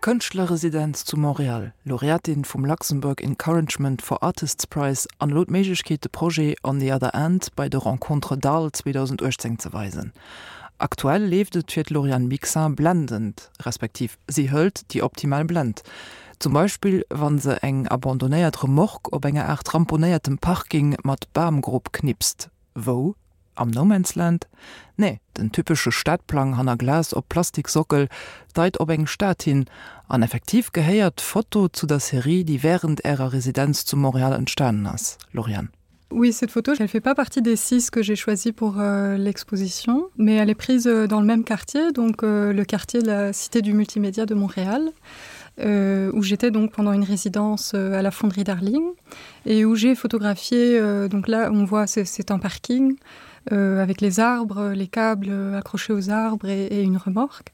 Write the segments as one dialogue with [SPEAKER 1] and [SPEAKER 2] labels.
[SPEAKER 1] Kënschtlerresidenz zu Montréal, Laureatin vum Luxembourg Encouragement for Artists Prize an elo d'Méiglechkeet de Projet On the Other End bei de Rencontres d'Arles 2018 ze weisen. Aktuell leeft et fir d'Lauriane Bixin blendend, respektiv si hëlt déi optimal Blend. Zum Beispill wann se eng abandonéiert Remorque op enger Aart ramponéiertem Parking mat Bamgrupp knipst. Wou? Am No Man's Land? Nee, den typesche Stadplang hanner Glas op Plastiksockel deit op eng Stad hin, an effektiv gehéiert d'Foto zu der Serie, déi wärend ärer Residenz zu Montréal entstanen ass, Lauriane.
[SPEAKER 2] Oui, cette photo, elle fait pas partie des six que j'ai choisi pour euh, l'exposition, mais elle est prise euh, dans le même quartier, donc euh, le quartier de la Cité du multimédia de Montréal, euh, où j'étais donc pendant une résidence euh, à la fonderie Darling et où j'ai photographié euh, donc là on voit c'est un parking euh, avec les arbres, les câbles accrochés aux arbres et, et une remorque.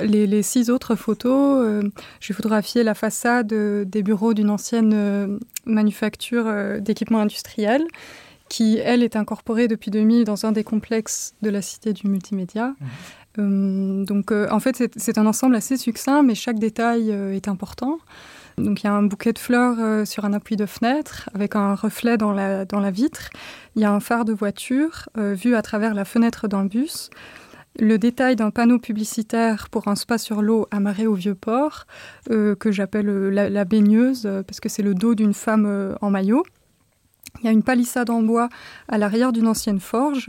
[SPEAKER 2] Les, les six autres photos, euh, j'ai photographié la façade euh, des bureaux d'une ancienne euh, manufacture euh, d'équipements industriels qui elle est incorporée depuis 2000 dans un des complexes de la cité du multimédia. Mmh. Euh, donc euh, en fait c'est un ensemble assez succinct mais chaque détail euh, est important. Donc il y a un bouquet de fleurs euh, sur un appui de fenêtre avec un reflet dans la, dans la vitre. Il y a un phare de voiture euh, vu à travers la fenêtre d'un bus. Le détail d'un panneau publicitaire pour un spa sur l'eau amarré au vieux port euh, que j'appelle euh, la, la baigneuse euh, parce que c'est le dos d'une femme euh, en maillot. Il y a une palissade en bois à l'arrière d'une ancienne forge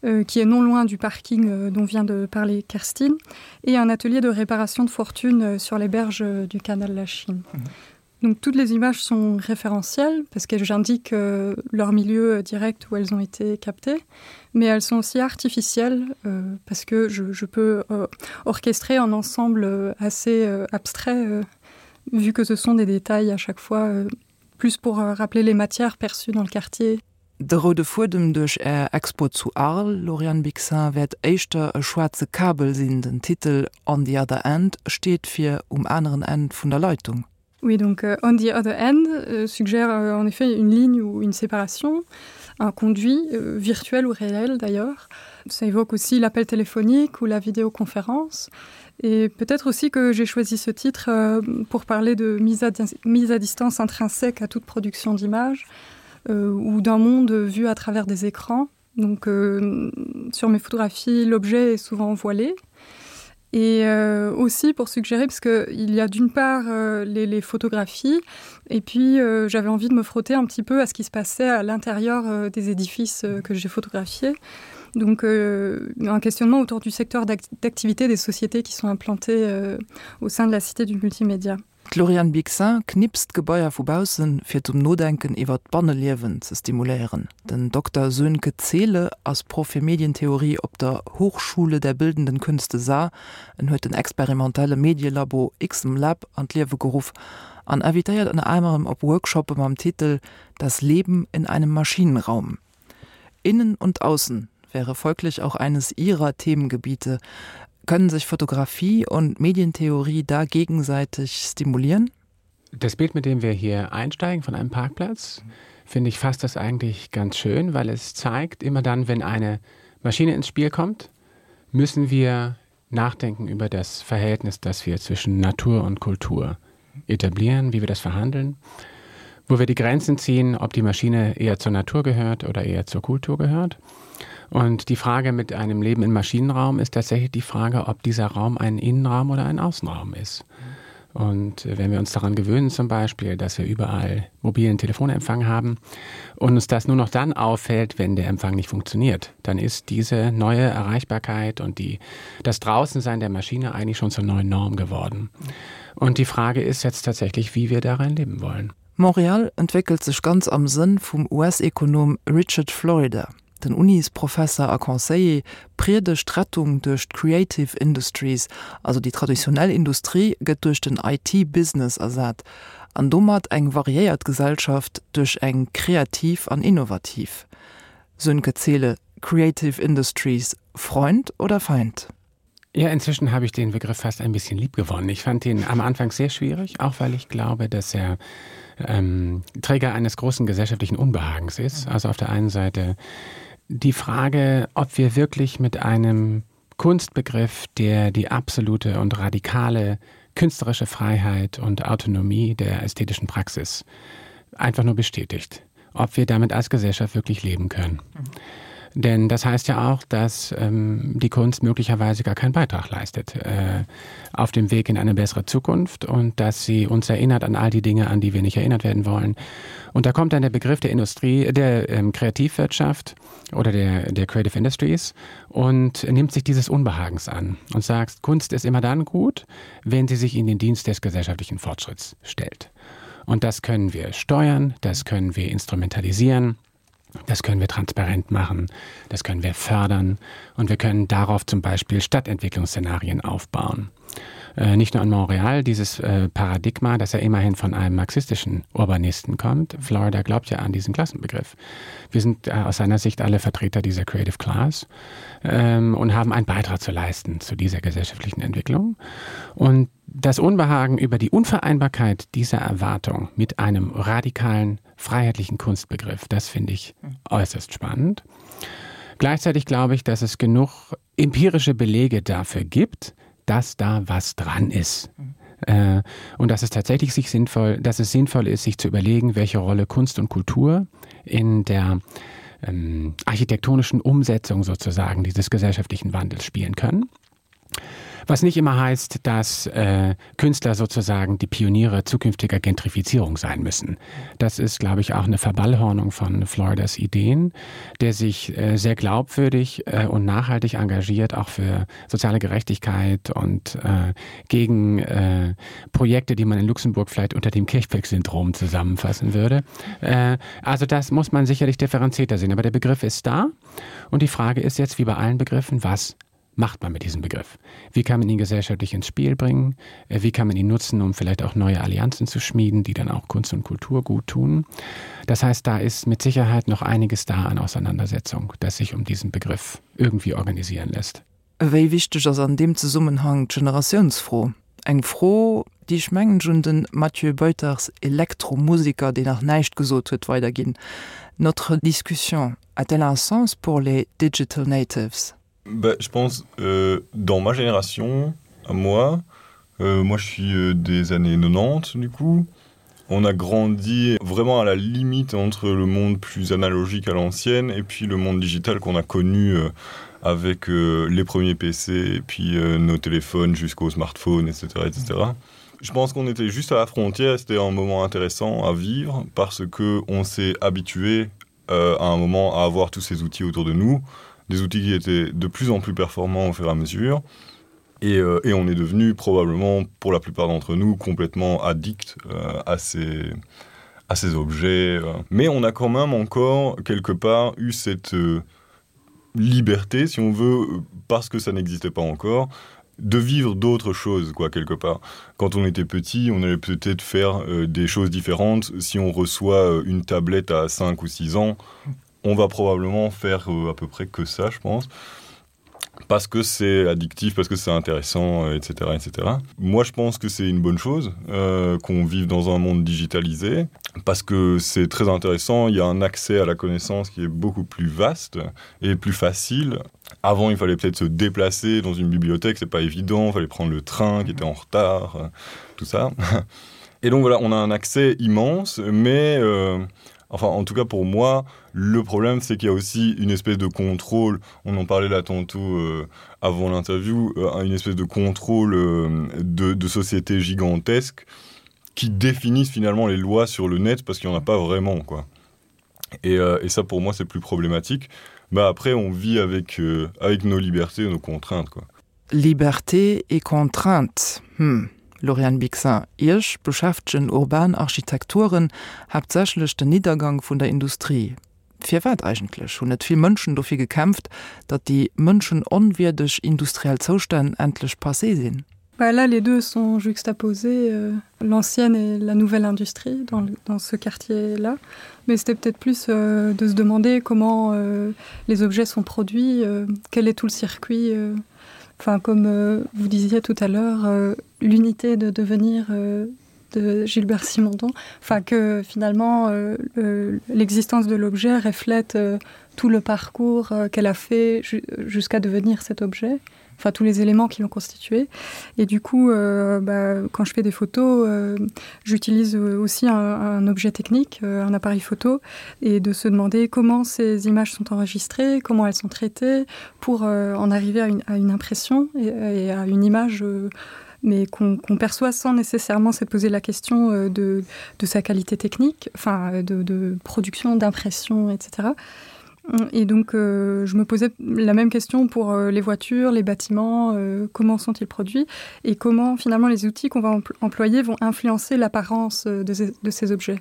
[SPEAKER 2] euh, qui est non loin du parking euh, dont vient de parler Kerstine et un atelier de réparation de fortune euh, sur les berges euh, du canal la Chine. Mmh. Donc toutes les images sont référentielles parce que j'indique euh, leur milieu euh, direct où elles ont été captées, mais elles sont aussi artificielles euh, parce que je, je peux euh, orchestrer un ensemble euh, assez euh, abstrait euh, vu que ce sont des détails à chaque fois euh, plus pour euh, rappeler les matières perçues dans le quartier.
[SPEAKER 1] De roude Fuedem duerch Är Expo zu Arles, Lauriane Bixin, wäert éischter e schwaarze Kabel sinn. Den Titel On the other end steet fir um aneren Enn vun der Leitung.
[SPEAKER 2] Oui, donc euh, On the other end euh, suggère euh, en effet une ligne ou une séparation, un conduit euh, virtuel ou réel d'ailleurs. Ça évoque aussi l'appel téléphonique ou la vidéoconférence. Et peut-être aussi que j'ai choisi ce titre euh, pour parler de mise à, mise à distance intrinsèque à toute production d'images euh, ou d'un monde vu à travers des écrans. Donc euh, sur mes photographies, l'objet est souvent voilé. Et euh, aussi pour suggérer parce que il y a d'une part euh, les, les photographies et puis euh, j'avais envie de me frotter un petit peu à ce qui se passait à l'intérieur euh, des édifices euh, que j'ai photographiés. Donc euh, un questionnement autour du secteur d'activité des sociétés qui sont implantées euh, au sein de la cité du multimédia.
[SPEAKER 1] D'Lauriane Bixin knipst Gebaier vu baussen, fir zum Nodenken iwwer d'Banneliewen ze stimuléieren. Den Dokter Sönke Zehle ass Proff fir Medientheorie op der Hochschule der Bildenden Künste Saar. En huet den experimentelle Medielabo XMLab an d'Liewe geruff an invitéiert ënner anerem op Workshoppe mam Titel Das Leben in einem Maschinenraum. Innen und Außen wäre folglich auch eines ihrer Themengebiete. Können sich Fotografie und Medientheorie da gegenseitig stimulieren?
[SPEAKER 3] Das Bild, mit dem wir hier einsteigen von einem Parkplatz, finde ich fasst das eigentlich ganz schön, weil es zeigt, immer dann, wenn eine Maschine ins Spiel kommt, müssen wir nachdenken über das Verhältnis, das wir zwischen Natur und Kultur etablieren, wie wir das verhandeln, wo wir die Grenzen ziehen, ob die Maschine eher zur Natur gehört oder eher zur Kultur gehört. Und die Frage mit einem Leben im Maschinenraum ist tatsächlich die Frage, ob dieser Raum ein Innenraum oder ein Außenraum ist. Und wenn wir uns daran gewöhnen zum Beispiel, dass wir überall mobilen Telefonempfang haben und uns das nur noch dann auffällt, wenn der Empfang nicht funktioniert, dann ist diese neue Erreichbarkeit und die, das Draußensein der Maschine eigentlich schon zur neuen Norm geworden. Und die Frage ist jetzt tatsächlich, wie wir darin leben wollen.
[SPEAKER 1] Montréal entwéckelt sech ganz am Sënn vum US-Ekonom Richard Florida. Den Unisprofesser a Conseiller priedegt d'Rettung duerch d'Creative Industries, also déi traditionell Industrie gëtt duerch den IT-Business ersat an domat eng variéiert Gesellschaft duerch eng kreativ an innovativ. Sönke Zehle, Creative Industries, Freund oder Feind?
[SPEAKER 3] Ja, inzwischen habe ich den Begriff fast ein bisschen lieb gewonnen. Ich fand ihn am Anfang sehr schwierig, auch weil ich glaube, dass er ähm, Träger eines großen gesellschaftlichen Unbehagens ist. Also auf der einen Seite die Frage, ob wir wirklich mit einem Kunstbegriff, der die absolute und radikale. künstlerische Freiheit und Autonomie der ästhetischen Praxis einfach nur bestätigt, ob wir damit als Gesellschaft wirklich leben können. Mhm. Denn das heißt ja auch, dass ähm, die Kunst möglicherweise gar keinen Beitrag leistet äh, auf dem Weg in eine bessere Zukunft und dass sie uns erinnert an all die Dinge, an die wir nicht erinnert werden wollen. Und da kommt dann der Begriff der Industrie, der ähm, Kreativwirtschaft oder der, der Creative Industries und nimmt sich dieses Unbehagens an und sagt, Kunst ist immer dann gut, wenn sie sich in den Dienst des gesellschaftlichen Fortschritts stellt. Und das können wir steuern, das können wir instrumentalisieren. Das können wir transparent machen, das können wir fördern und wir können darauf zum Beispiel Stadtentwicklungsszenarien aufbauen. Äh, nicht nur an Montreal, dieses äh, Paradigma, das ja immerhin von einem marxistischen Urbanisten kommt. Florida glaubt ja an diesen Klassenbegriff. Wir sind äh, aus seiner Sicht alle Vertreter dieser Creative Class ähm, und haben einen Beitrag zu leisten zu dieser gesellschaftlichen Entwicklung. Und das Unbehagen über die Unvereinbarkeit dieser Erwartung mit einem radikalen freiheitlichen Kunstbegriff, das finde ich äußerst spannend. Gleichzeitig glaube ich, dass es genug empirische Belege dafür gibt, dass da was dran ist. Äh, und dass es tatsächlich sich sinnvoll, dass es sinnvoll ist, sich zu überlegen, welche Rolle Kunst und Kultur in der ähm, architektonischen Umsetzung sozusagen dieses gesellschaftlichen Wandels spielen können. Was nicht immer heißt, dass äh, Künstler sozusagen die Pioniere zukünftiger Gentrifizierung sein müssen. Das ist, glaube ich, auch eine Verballhornung von Floridas Ideen, der sich äh, sehr glaubwürdig äh, und nachhaltig engagiert, auch für soziale Gerechtigkeit und äh, gegen äh, Projekte, die man in Luxemburg vielleicht unter dem Kirchberg-Syndrom zusammenfassen würde. Äh, also das muss man sicherlich differenzierter sehen. Aber der Begriff ist da und die Frage ist jetzt, wie bei allen Begriffen, was macht man mit diesem Begriff? Wie kann man ihn gesellschaftlich ins Spiel bringen? Äh, wie kann man ihn nutzen, um vielleicht auch neue Allianzen zu schmieden, die dann auch Kunst und Kultur gut tun? Das heißt, da ist mit Sicherheit noch einiges da an Auseinandersetzung, das sich um diesen Begriff irgendwie organisieren lässt.
[SPEAKER 1] Wéi wichteg ass an deem Zesummenhang d'Generatiounsfro? Eng Fro, déi ech mengen ech un den Mathieu Buytaerts, Elektromusiker, deen nach näischt gesot huet, weiderginn. Notre discussion a-t-elle un sens pour les digital natives?
[SPEAKER 4] Bah, je pense euh, dans ma génération à moi euh, moi je suis euh, des années 90 du coup on a grandi vraiment à la limite entre le monde plus analogique à l'ancienne et puis le monde digital qu'on a connu euh, avec euh, les premiers PC et puis euh, nos téléphones jusqu'au smartphone etc etc je pense qu'on était juste à la frontière c'était un moment intéressant à vivre parce que on s'est habitué euh, à un moment à avoir tous ces outils autour de nous et des outils qui étaient de plus en plus performants au fur et à mesure. Et, euh, et on est devenu probablement pour la plupart d'entre nous complètement addict euh, à ces à ces objets. Euh. Mais on a quand même encore quelque part eu cette euh, liberté, si on veut, parce que ça n'existait pas encore, de vivre d'autres choses quoi quelque part. Quand on était petit, on allait peut-être faire euh, des choses différentes. Si on reçoit euh, une tablette à 5 ou 6 ans, on va probablement faire euh, à peu près que ça, je pense parce que c'est addictif, parce que c'est intéressant, etc., euh, etc. Moi, je pense que c'est une bonne chose euh, qu'on vive dans un monde digitalisé, parce que c'est très intéressant, il y a un accès à la connaissance qui est beaucoup plus vaste et plus facile. Avant, il fallait peut-être se déplacer dans une bibliothèque, c'est pas évident, il fallait prendre le train qui était en retard, euh, tout ça. Et donc voilà, on a un accès immense, mais euh, enfin en tout cas pour moi le problème c'est qu'il y a aussi une espèce de contrôle on en parlait là tantôt euh, avant l'interview euh, une espèce de contrôle euh, de, de société gigantesque qui définissent finalement les lois sur le net parce qu'il n'y en a pas vraiment quoi et, euh, et ça pour moi c'est plus problématique bah après on vit avec euh, avec nos libertés nos contraintes quoi
[SPEAKER 1] Liberté et contraintes hm Lauriane Bixin, Iech beschäftegen urban Architekturen haaptsächlech den Niddergang vun der Industrie. Firwat eigentlech? Hunn net vill Mënschen dofir gekämpft, datt déi mënschenonwierdeg industriell Zoustänn endlech passé sinn?
[SPEAKER 2] Bah là, les deux sont juxtaposés, euh, l'ancienne et la nouvelle industrie dans, dans ce quartier-là. Mais c'était peut-être plus euh, de se demander comment euh, les objets sont produits, euh, quel est tout le circuit. Euh, enfin, comme euh, vous disiez tout à l'heure, euh, l'unité de devenir euh, de Gilbert Simondon, enfin que finalement euh, l'existence de l'objet reflète euh, tout le parcours euh, qu'elle a fait jusqu'à devenir cet objet. enfin tous les éléments qui l'ont constitué. Et du coup, euh, bah, quand je fais des photos, euh, j'utilise aussi un, un objet technique, euh, un appareil photo, et de se demander comment ces images sont enregistrées, comment elles sont traitées, pour euh, en arriver à une, à une impression et, et à une image euh, mais qu'on qu perçoit sans nécessairement se poser la question euh, de, de sa qualité technique, enfin de, de production, d'impression, etc. Et donc euh, je me posais la même question pour euh, les voitures, les bâtiments, euh, comment sont-ils produits et comment finalement les outils qu'on va employer vont influencer l'apparence euh, de, de ces objets.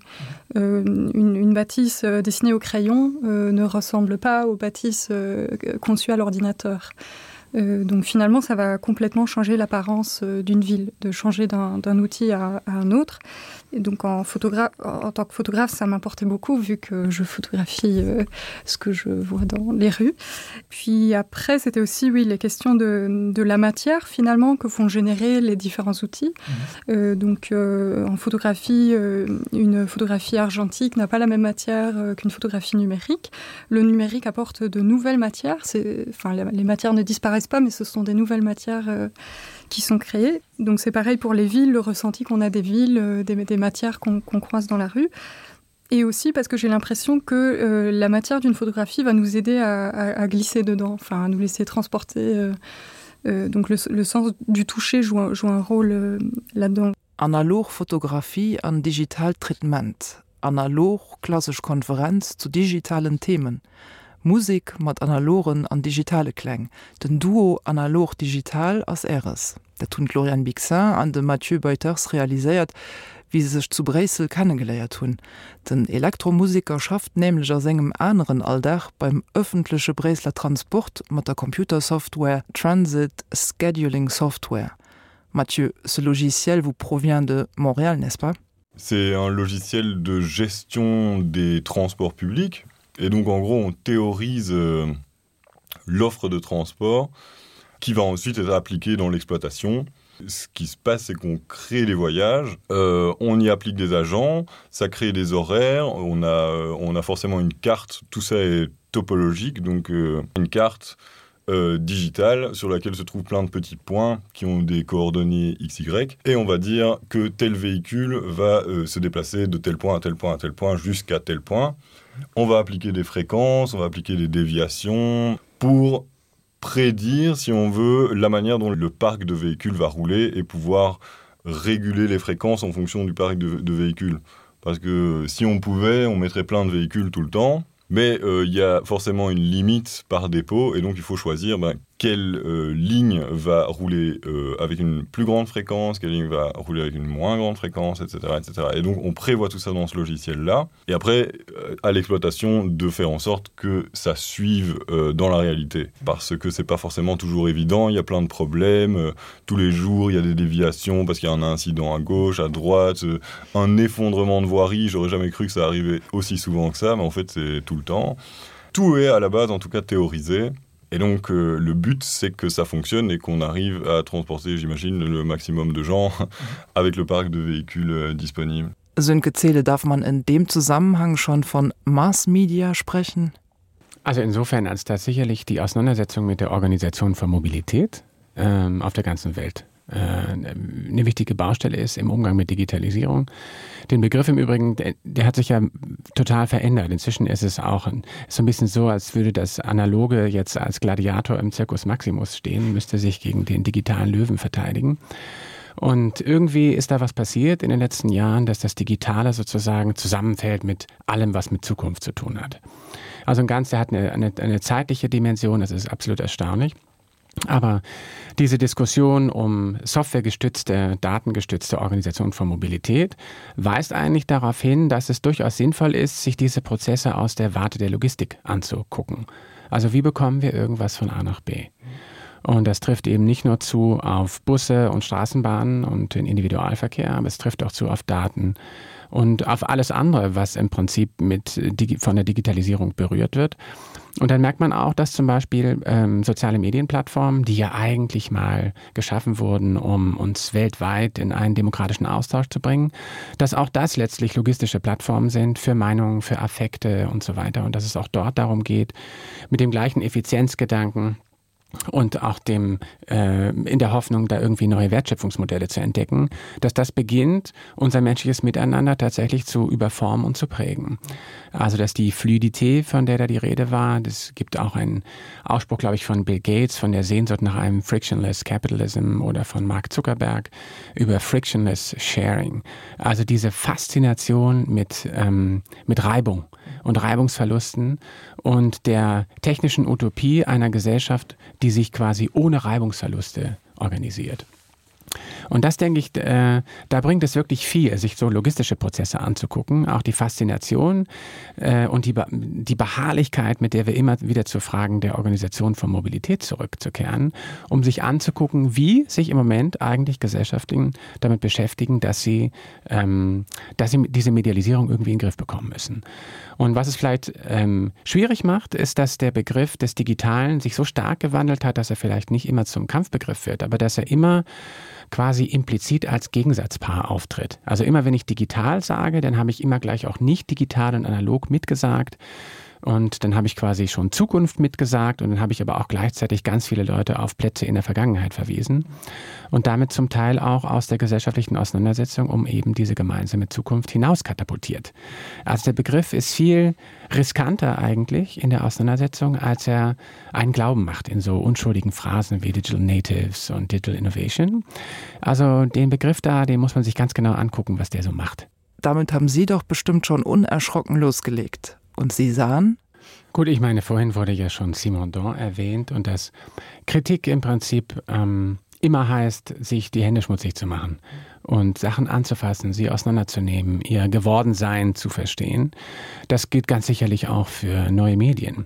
[SPEAKER 2] Euh, une, une bâtisse euh, dessinée au crayon euh, ne ressemble pas aux bâtisses euh, conçues à l'ordinateur. Euh, donc finalement, ça va complètement changer l'apparence euh, d'une ville, de changer d'un outil à, à un autre. Et donc en, en tant que photographe, ça m'importait beaucoup vu que je photographie euh, ce que je vois dans les rues. Puis après, c'était aussi oui, les questions de, de la matière finalement que font générer les différents outils. Mmh. Euh, donc euh, en photographie, euh, une photographie argentique n'a pas la même matière euh, qu'une photographie numérique. Le numérique apporte de nouvelles matières. Enfin, les matières ne disparaissent pas, mais ce sont des nouvelles matières euh, qui sont créées. Donc c'est pareil pour les villes, le ressenti qu'on a des villes, euh, des, des matières qu'on qu croise dans la rue. Et aussi parce que j'ai l'impression que euh, la matière d'une photographie va nous aider à, à, à glisser dedans, enfin à nous laisser transporter. Euh, euh, donc le, le sens du toucher joue un, joue un rôle euh, là-dedans.
[SPEAKER 1] Analog Fotografie an digitaalt Traitement, analog klassesch Konferenz zu digitalen Themen, Musek mat analogen an digitale Kläng, den Duo Analog-Digital ass Äres. Dat hunn d'Lauriane Bixin an de Mathieu Beuters realiséiert, wéi se sech zu Bréissel kennegeléiert hunn. Den Elektromuseker schafft nämlech a sengem aneren Alldag beim ëffentleche Bréisseler Transport mat der Computersoftware Transit Scheduling Software. Mathieu, ce logiciel vous provient de Montréal, n'est-ce pas?
[SPEAKER 4] C'est un logiciel de gestion des transports publics et donc en gros on théorise euh, l'offre de transport qui va ensuite être appliquée dans l'exploitation. Ce qui se passe, c'est qu'on crée les voyages, euh, on y applique des agents, ça crée des horaires, on a, euh, on a forcément une carte, tout ça est topologique, donc euh, une carte euh, digitale sur laquelle se trouvent plein de petits points qui ont des coordonnées XY et on va dire que tel véhicule va euh, se déplacer de tel point à tel point à tel point jusqu'à tel point. On va appliquer des fréquences, on va appliquer des déviations pour prédire, si on veut, la manière dont le parc de véhicules va rouler et pouvoir réguler les fréquences en fonction du parc de, de véhicules. Parce que si on pouvait, on mettrait plein de véhicules tout le temps, mais euh, il euh, y a forcément une limite par dépôt et donc il faut choisir ben, quelle euh, ligne va rouler euh, avec une plus grande fréquence, quelle ligne va rouler avec une moins grande fréquence, etc. etc. Et donc on prévoit tout ça dans ce logiciel-là. Et après, euh, à l'exploitation, de faire en sorte que ça suive euh, dans la réalité. Parce que c'est pas forcément toujours évident, il y a plein de problèmes. Euh, tous les jours, il y a des déviations parce qu'il y a un incident à gauche, à droite, euh, un effondrement de voirie. J'aurais jamais cru que ça arrivait aussi souvent que ça, mais en fait c'est tout le temps. Tout est à la base en tout cas théorisé. Et donc euh, le but c'est que ça fonctionne et qu'on arrive à transporter, j'imagine, le maximum de gens avec le parc de véhicules euh, disponibles.
[SPEAKER 1] Sönke Zähle darf man in dem Zusammenhang schon von Mass Media sprechen?
[SPEAKER 3] Also insofern, als da sicherlich die Auseinandersetzung mit der Organisation von Mobilität ähm, auf der ganzen Welt äh, eine wichtige Baustelle ist im Umgang mit Digitalisierung. Den Begriff im Übrigen, der, der hat sich ja total verändert. Inzwischen ist es auch ein, so ein bisschen so, als würde das Analoge jetzt als Gladiator im Zirkus Maximus stehen, müsste sich gegen den digitalen Löwen verteidigen. Und irgendwie ist da was passiert in den letzten Jahren, dass das Digitale sozusagen zusammenfällt mit allem, was mit Zukunft zu tun hat. Also ein Ganze hat eine, eine, eine zeitliche Dimension, das ist absolut erstaunlich. Aber diese Diskussion um softwaregestützte, datengestützte Organisation von Mobilität weist eigentlich darauf hin, dass es durchaus sinnvoll ist, sich diese Prozesse aus der Warte der Logistik anzugucken. Also wie bekommen wir irgendwas von A nach B? Und das trifft eben nicht nur zu auf Busse und Straßenbahnen und den Individualverkehr, aber es trifft auch zu auf Daten und auf alles andere, was im Prinzip mit von der Digitalisierung berührt wird. Und dann merkt man auch, dass zum Beispiel ähm, soziale Medienplattformen, die ja eigentlich mal geschaffen wurden, um uns weltweit in einen demokratischen Austausch zu bringen, dass auch das letztlich logistische Plattformen sind für Meinungen, für Affekte und so weiter. Und dass es auch dort darum geht, mit dem gleichen Effizienzgedanken. und auch dem äh, in der Hoffnung, da irgendwie neue Wertschöpfungsmodelle zu entdecken, dass das beginnt, unser menschliches Miteinander tatsächlich zu überformen und zu prägen. Also dass die Fluidität, von der da die Rede war, das gibt auch einen Ausspruch, glaube ich, von Bill Gates, von der Sehnsucht nach einem Frictionless Capitalism oder von Mark Zuckerberg über Frictionless Sharing. Also diese Faszination mit, ähm, mit Reibung und Reibungsverlusten und der technischen Utopie einer Gesellschaft, die sich quasi ohne Reibungsverluste organisiert. Und das denke ich, äh, da bringt es wirklich viel, sich so logistische Prozesse anzugucken, auch die Faszination äh, und die, die Beharrlichkeit, mit der wir immer wieder zu Fragen der Organisation von Mobilität zurückzukehren, um sich anzugucken, wie sich im Moment eigentlich Gesellschaften damit beschäftigen, dass sie, ähm, dass sie diese Medialisierung irgendwie in den Griff bekommen müssen. Und was es vielleicht ähm, schwierig macht, ist, dass der Begriff des Digitalen sich so stark gewandelt hat, dass er vielleicht nicht immer zum Kampfbegriff wird, aber dass er immer quasi implizit als Gegensatzpaar auftritt. Also immer wenn ich digital sage, dann habe ich immer gleich auch nicht digital und analog mitgesagt. Und dann habe ich quasi schon Zukunft mitgesagt und dann habe ich aber auch gleichzeitig ganz viele Leute auf Plätze in der Vergangenheit verwiesen und damit zum Teil auch aus der gesellschaftlichen Auseinandersetzung um eben diese gemeinsame Zukunft hinaus katapultiert. Also der Begriff ist viel riskanter eigentlich in der Auseinandersetzung, als er einen Glauben macht in so unschuldigen Phrasen wie Digital Natives und Digital Innovation. Also den Begriff da, den muss man sich ganz genau angucken, was der so macht.
[SPEAKER 1] Damit haben Sie doch bestimmt schon unerschrocken losgelegt. Und Sie sahen?
[SPEAKER 3] Gut, ich meine, vorhin wurde ja schon Simondon erwähnt und dass Kritik im Prinzip ähm, immer heißt, sich die Hände schmutzig zu machen und Sachen anzufassen, sie auseinanderzunehmen, ihr Gewordensein zu verstehen. Das gilt ganz sicherlich auch für neue Medien.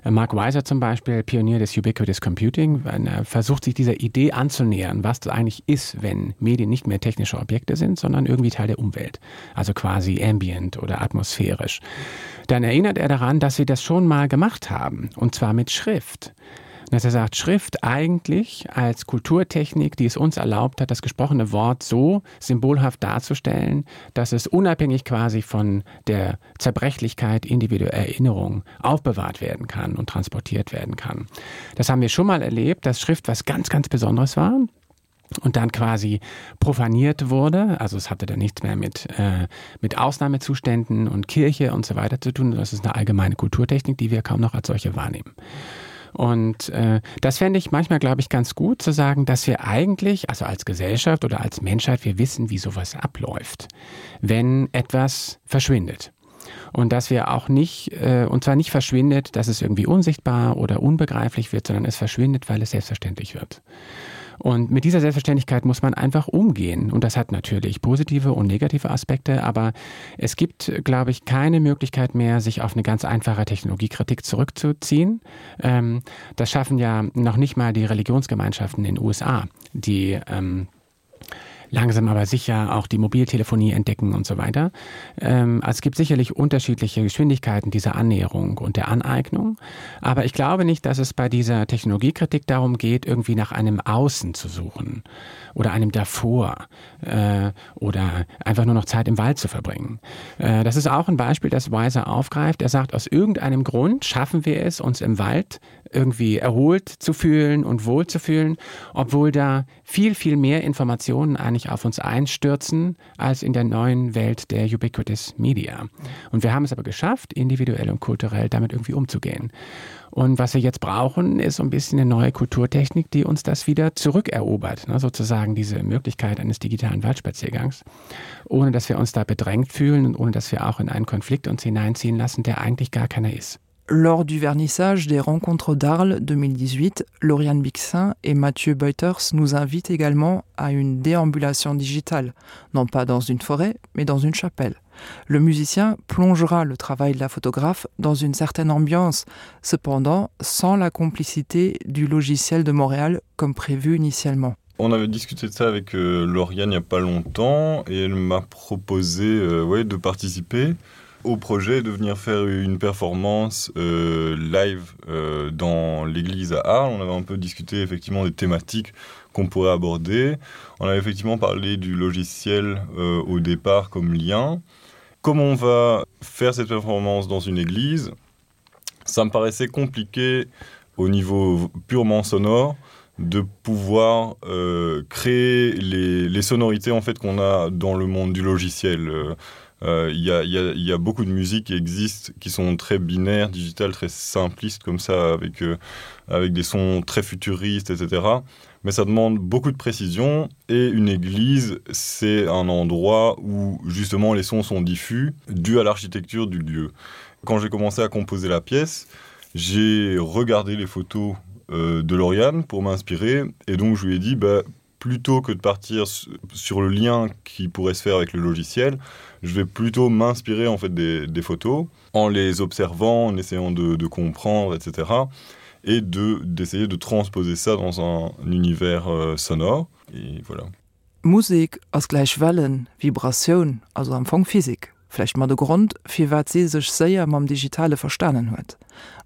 [SPEAKER 3] Äh, Mark Weiser zum Beispiel, Pionier des Ubiquitous Computing, er versucht sich dieser Idee anzunähern, was das eigentlich ist, wenn Medien nicht mehr technische Objekte sind, sondern irgendwie Teil der Umwelt, also quasi ambient oder atmosphärisch. Dann erinnert er daran, dass sie das schon mal gemacht haben, und zwar mit Schrift dass er sagt, Schrift eigentlich als Kulturtechnik, die es uns erlaubt hat, das gesprochene Wort so symbolhaft darzustellen, dass es unabhängig quasi von der Zerbrechlichkeit individueller Erinnerung aufbewahrt werden kann und transportiert werden kann. Das haben wir schon mal erlebt, dass Schrift was ganz, ganz Besonderes war und dann quasi profaniert wurde. Also es hatte dann nichts mehr mit, äh, mit Ausnahmezuständen und Kirche und so weiter zu tun. Das ist eine allgemeine Kulturtechnik, die wir kaum noch als solche wahrnehmen. Und äh, das fände ich manchmal, glaube ich, ganz gut zu sagen, dass wir eigentlich, also als Gesellschaft oder als Menschheit, wir wissen, wie sowas abläuft, wenn etwas verschwindet. Und dass wir auch nicht, äh, und zwar nicht verschwindet, dass es irgendwie unsichtbar oder unbegreiflich wird, sondern es verschwindet, weil es selbstverständlich wird. Und mit dieser Selbstverständlichkeit muss man einfach umgehen. Und das hat natürlich positive und negative Aspekte, aber es gibt, glaube ich, keine Möglichkeit mehr, sich auf eine ganz einfache Technologiekritik zurückzuziehen. Ähm, das schaffen ja noch nicht mal die Religionsgemeinschaften in den USA, die ähm, langsam aber sicher auch die Mobiltelefonie entdecken und so weiter. Ähm, also es gibt sicherlich unterschiedliche Geschwindigkeiten dieser Annäherung und der Aneignung. Aber ich glaube nicht, dass es bei dieser Technologiekritik darum geht, irgendwie nach einem Außen zu suchen oder einem davor äh, oder einfach nur noch Zeit im Wald zu verbringen. Äh, das ist auch ein Beispiel, das Weiser aufgreift. Er sagt, aus irgendeinem Grund schaffen wir es, uns im Wald irgendwie erholt zu fühlen und wohl zu fühlen, obwohl da viel, viel mehr Informationen eigentlich auf uns einstürzen als in der neuen Welt der Ubiquitous Media. Und wir haben es aber geschafft, individuell und kulturell damit irgendwie umzugehen. Und was wir jetzt brauchen, ist so ein bisschen eine neue Kulturtechnik, die uns das wieder zurückerobert, ne? sozusagen diese Möglichkeit eines digitalen Waldspaziergangs, ohne dass wir uns da bedrängt fühlen und ohne dass wir auch in einen Konflikt uns hineinziehen lassen, der eigentlich gar keiner ist.
[SPEAKER 1] Lors du vernissage des Rencontres d'Arles 2018, Lauriane Bixin et Mathieu Beuters nous invitent également à une déambulation digitale, non pas dans une forêt, mais dans une chapelle. Le musicien plongera le travail de la photographe dans une certaine ambiance, cependant sans la complicité du logiciel de Montréal comme prévu initialement.
[SPEAKER 4] On avait discuté de ça avec euh, Lauriane il n'y a pas longtemps et elle m'a proposé euh, ouais, de participer au projet de venir faire une performance euh, live euh, dans l'église à Arles. On avait un peu discuté effectivement des thématiques qu'on pourrait aborder. On avait effectivement parlé du logiciel euh, au départ comme lien. Comment on va faire cette performance dans une église Ça me paraissait compliqué. au niveau purement sonore de pouvoir euh, créer les, les sonorités en fait qu'on a dans le monde du logiciel. Euh, euh, il euh, y, a, y, a, y a beaucoup de musiques qui existent qui sont très binaires, digitales, très simplistes comme ça avec, euh, avec des sons très futuristes, etc. Mais ça demande beaucoup de précision et une église, c'est un endroit où justement les sons sont diffus dû à l'architecture du lieu. Quand j'ai commencé à composer la pièce, j'ai regardé les photos euh, de Lauriane pour m'inspirer et donc je lui ai dit bah, plutôt que de partir sur le lien qui pourrait se faire avec le logiciel, je vais plutôt m'inspirer en fait des, des photos en les observant, en essayant de, de comprendre, etc. et de d'essayer de transposer ça dans un univers euh, sonore et voilà.
[SPEAKER 1] Musek ass gläich Wellen, Vibratioun, also am Fong Physik. Vläicht mat e Grond, firwat si sech séier mam Digitale verstanen huet.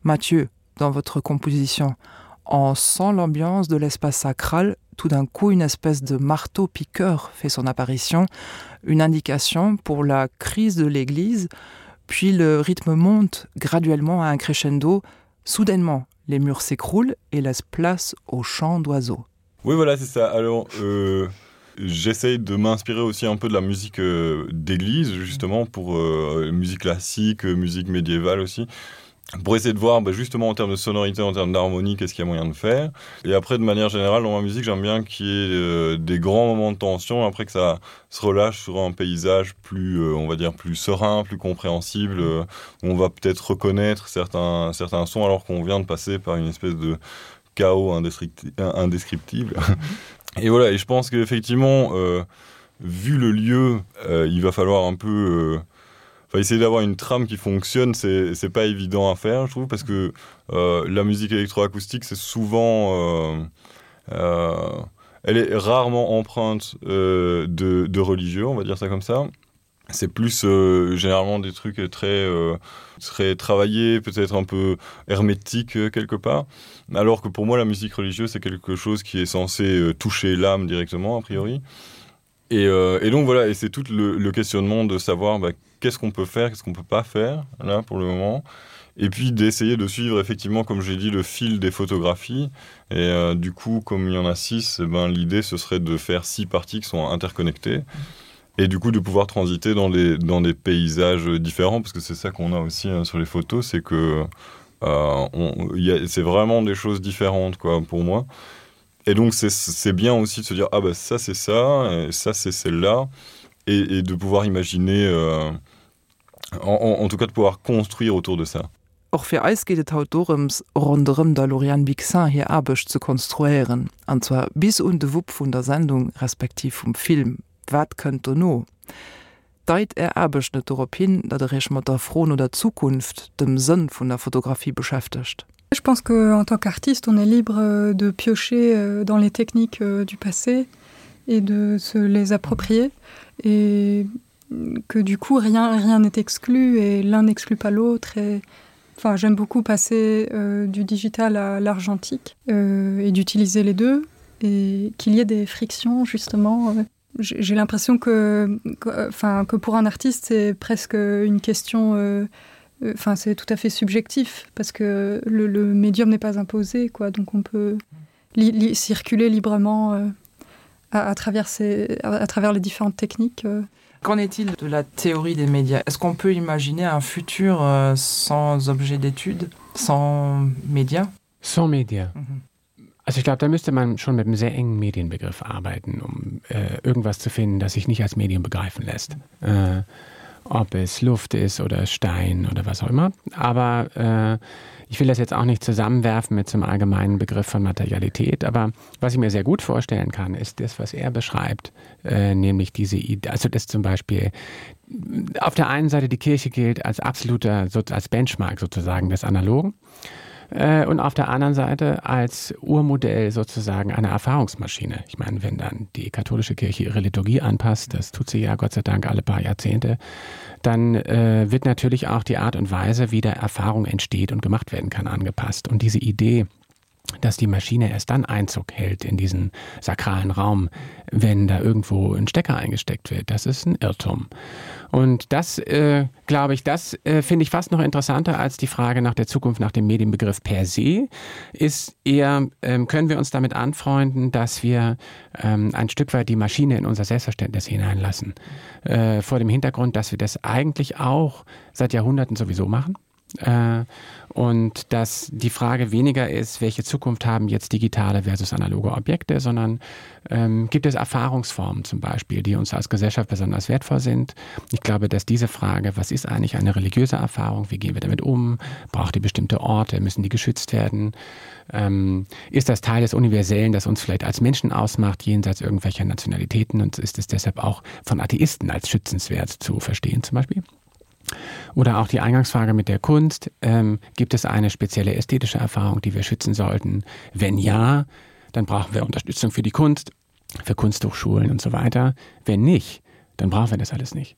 [SPEAKER 1] Mathieu, dans votre composition, on sent l'ambiance de l'espace sacral, tout d'un coup une espèce de marteau piqueur fait son apparition, une indication pour la crise de l'église, puis le rythme monte graduellement à un crescendo, soudainement les murs s'écroulent et laissent place au chant d'oiseaux.
[SPEAKER 4] Oui voilà c'est ça alors euh, j'essaye de m'inspirer aussi un peu de la musique euh, d'église justement pour euh, musique classique musique médiévale aussi pour essayer de voir bah, justement en termes de sonorité en termes d'harmonie qu'est-ce qu'il y a moyen de faire et après de manière générale dans ma musique j'aime bien qu'il y ait euh, des grands moments de tension après que ça se relâche sur un paysage plus euh, on va dire plus serein plus compréhensible euh, où on va peut-être reconnaître certains certains sons alors qu'on vient de passer par une espèce de chaos indescriptible et voilà et je pense qu'effectivement euh, vu le lieu euh, il va falloir un peu euh, enfin, essayer d'avoir une trame qui fonctionne c'est pas évident à faire je trouve parce que euh, la musique électroacoustique c'est souvent euh, euh, elle est rarement empreinte euh, de, de religieux on va dire ça comme ça c'est plus euh, généralement des trucs très euh, très travaillés peut-être un peu hermétique euh, quelque part alors que pour moi la musique religieuse c'est quelque chose qui est censé euh, toucher l'âme directement a priori et, euh, et donc voilà et c'est tout le, le questionnement de savoir bah, qu'est-ce qu'on peut faire qu'est-ce qu'on peut pas faire là pour le moment et puis d'essayer de suivre effectivement comme j'ai dit le fil des photographies et euh, du coup comme il y en a six eh ben l'idée ce serait de faire six parties qui sont interconnectées et du coup de pouvoir transiter dans des dans des paysages différents parce que c'est ça qu'on a aussi hein, sur les photos c'est que euh, c'est vraiment des choses différentes quoi pour moi et donc c'est bien aussi de se dire ah bah ça c'est ça et ça c'est celle là et, et de pouvoir imaginer euh, en, en, en tout cas de pouvoir construire autour de ça.
[SPEAKER 1] Och fir eis geet et haut dorëms, ronderëm der Lauriane Bixin hir Aarbecht ze konstruéieren, an zwar bis un de Wupp vun der Sendung, respektiv vum Film. Wat kënnt dono? Deit Är Aarbecht net dorop hin, datt Der Iech mat der Fro no der Zukunft, dem Sënn vun der Fotografie beschäftegt?
[SPEAKER 2] Je pense que en tant qu'artiste, on est libre euh, de piocher euh, dans les techniques euh, du passé et de se les approprier et que du coup rien rien n'est exclu et l'un n'exclut pas l'autre et enfin j'aime beaucoup passer euh, du digital à l'argentique euh, et d'utiliser les deux et qu'il y ait des frictions justement euh, j'ai l'impression que enfin que, que pour un artiste c'est presque une question euh, euh, enfin euh, c'est tout à fait subjectif parce que le, le médium n'est pas imposé quoi donc on peut li, li, circuler librement euh, à, à travers ces, à, à travers les différentes techniques euh.
[SPEAKER 1] Qu'en est-il de la théorie des médias Est-ce qu'on peut imaginer un futur euh, sans objet d'étude, sans médias
[SPEAKER 3] Sans médias. Mhm. Also ich glaube, da müsste man schon mit einem sehr engen Medienbegriff arbeiten, um äh, irgendwas zu finden, das sich nicht als Medium begreifen lässt. Äh, ob es Luft ist oder Stein oder was auch immer. Aber äh, ich will das jetzt auch nicht zusammenwerfen mit zum allgemeinen Begriff von Materialität. Aber was ich mir sehr gut vorstellen kann, ist das, was er beschreibt, äh, nämlich diese Idee, also das zum Beispiel auf der einen Seite die Kirche gilt als absoluter als Benchmark sozusagen des Analogen äh, und auf der anderen Seite als Urmodell sozusagen einer Erfahrungsmaschine. Ich meine, wenn dann die katholische Kirche ihre Liturgie anpasst, das tut sie ja Gott sei Dank alle paar Jahrzehnte, dann äh, wird natürlich auch die Art und Weise, wie der Erfahrung entsteht und gemacht werden kann, angepasst. Und diese Idee, dass die Maschine erst dann Einzug hält in diesen sakralen Raum, wenn da irgendwo ein Stecker eingesteckt wird. Das ist ein Irrtum. Und das äh, glaube ich, das äh, finde ich fast noch interessanter als die Frage nach der Zukunft nach dem Medienbegriff per se ist eher ähm, können wir uns damit anfreunden, dass wir ähm, ein Stück weit die Maschine in unser Selbstverständnis hineinlassen. Äh, vor dem Hintergrund, dass wir das eigentlich auch seit Jahrhunderten sowieso machen. Äh, und dass die Frage weniger ist, welche Zukunft haben jetzt digitale versus analoge Objekte, sondern ähm, gibt es Erfahrungsformen zum Beispiel, die uns als Gesellschaft besonders wertvoll sind. Ich glaube, dass diese Frage, was ist eigentlich eine religiöse Erfahrung, wie gehen wir damit um, braucht die bestimmte Orte, müssen die geschützt werden, ähm, ist das Teil des Universellen, das uns vielleicht als Menschen ausmacht, jenseits irgendwelcher Nationalitäten und ist es deshalb auch von Atheisten als schützenswert zu verstehen zum Beispiel? Oder auch die Eingangsfrage mit der Kunst. Ähm, gibt es eine spezielle ästhetische Erfahrung, die wir schützen sollten? Wenn ja, dann brauchen wir Unterstützung für die Kunst, für Kunsthochschulen und so weiter. Wenn nicht, dann brauchen wir das alles nicht.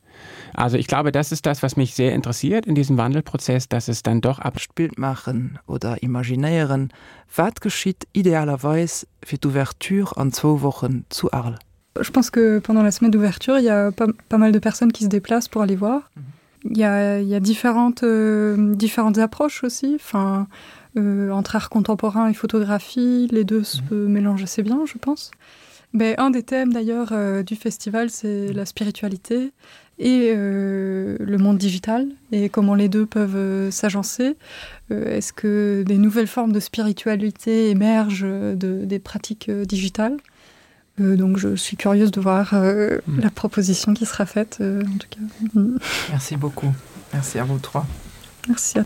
[SPEAKER 3] Also ich glaube, das ist das, was mich sehr interessiert in diesem Wandelprozess, dass es dann doch
[SPEAKER 1] abspielt machen oder imaginéieren, wat geschitt idealerweis fir d'Ouverture an zwou Wochen zu Arles?
[SPEAKER 2] Je pense que pendant la semaine d'ouverture, il y a pas, pas mal de personnes qui se déplacent pour aller voir. Mhm. Il y a, il y a différentes, euh, différentes approches aussi enfin, euh, entre art contemporain et photographie, les deux se mmh. mélangent assez bien, je pense. Mais un des thèmes d'ailleurs euh, du festival, c'est la spiritualité et euh, le monde digital et comment les deux peuvent euh, s'agencer. Euh, Est-ce que des nouvelles formes de spiritualité émergent euh, de, des pratiques euh, digitales euh, donc je suis curieuse de voir euh, mmh. la proposition qui sera faite euh, en tout cas.
[SPEAKER 1] Merci beaucoup. Merci à vous trois.
[SPEAKER 2] Merci. À...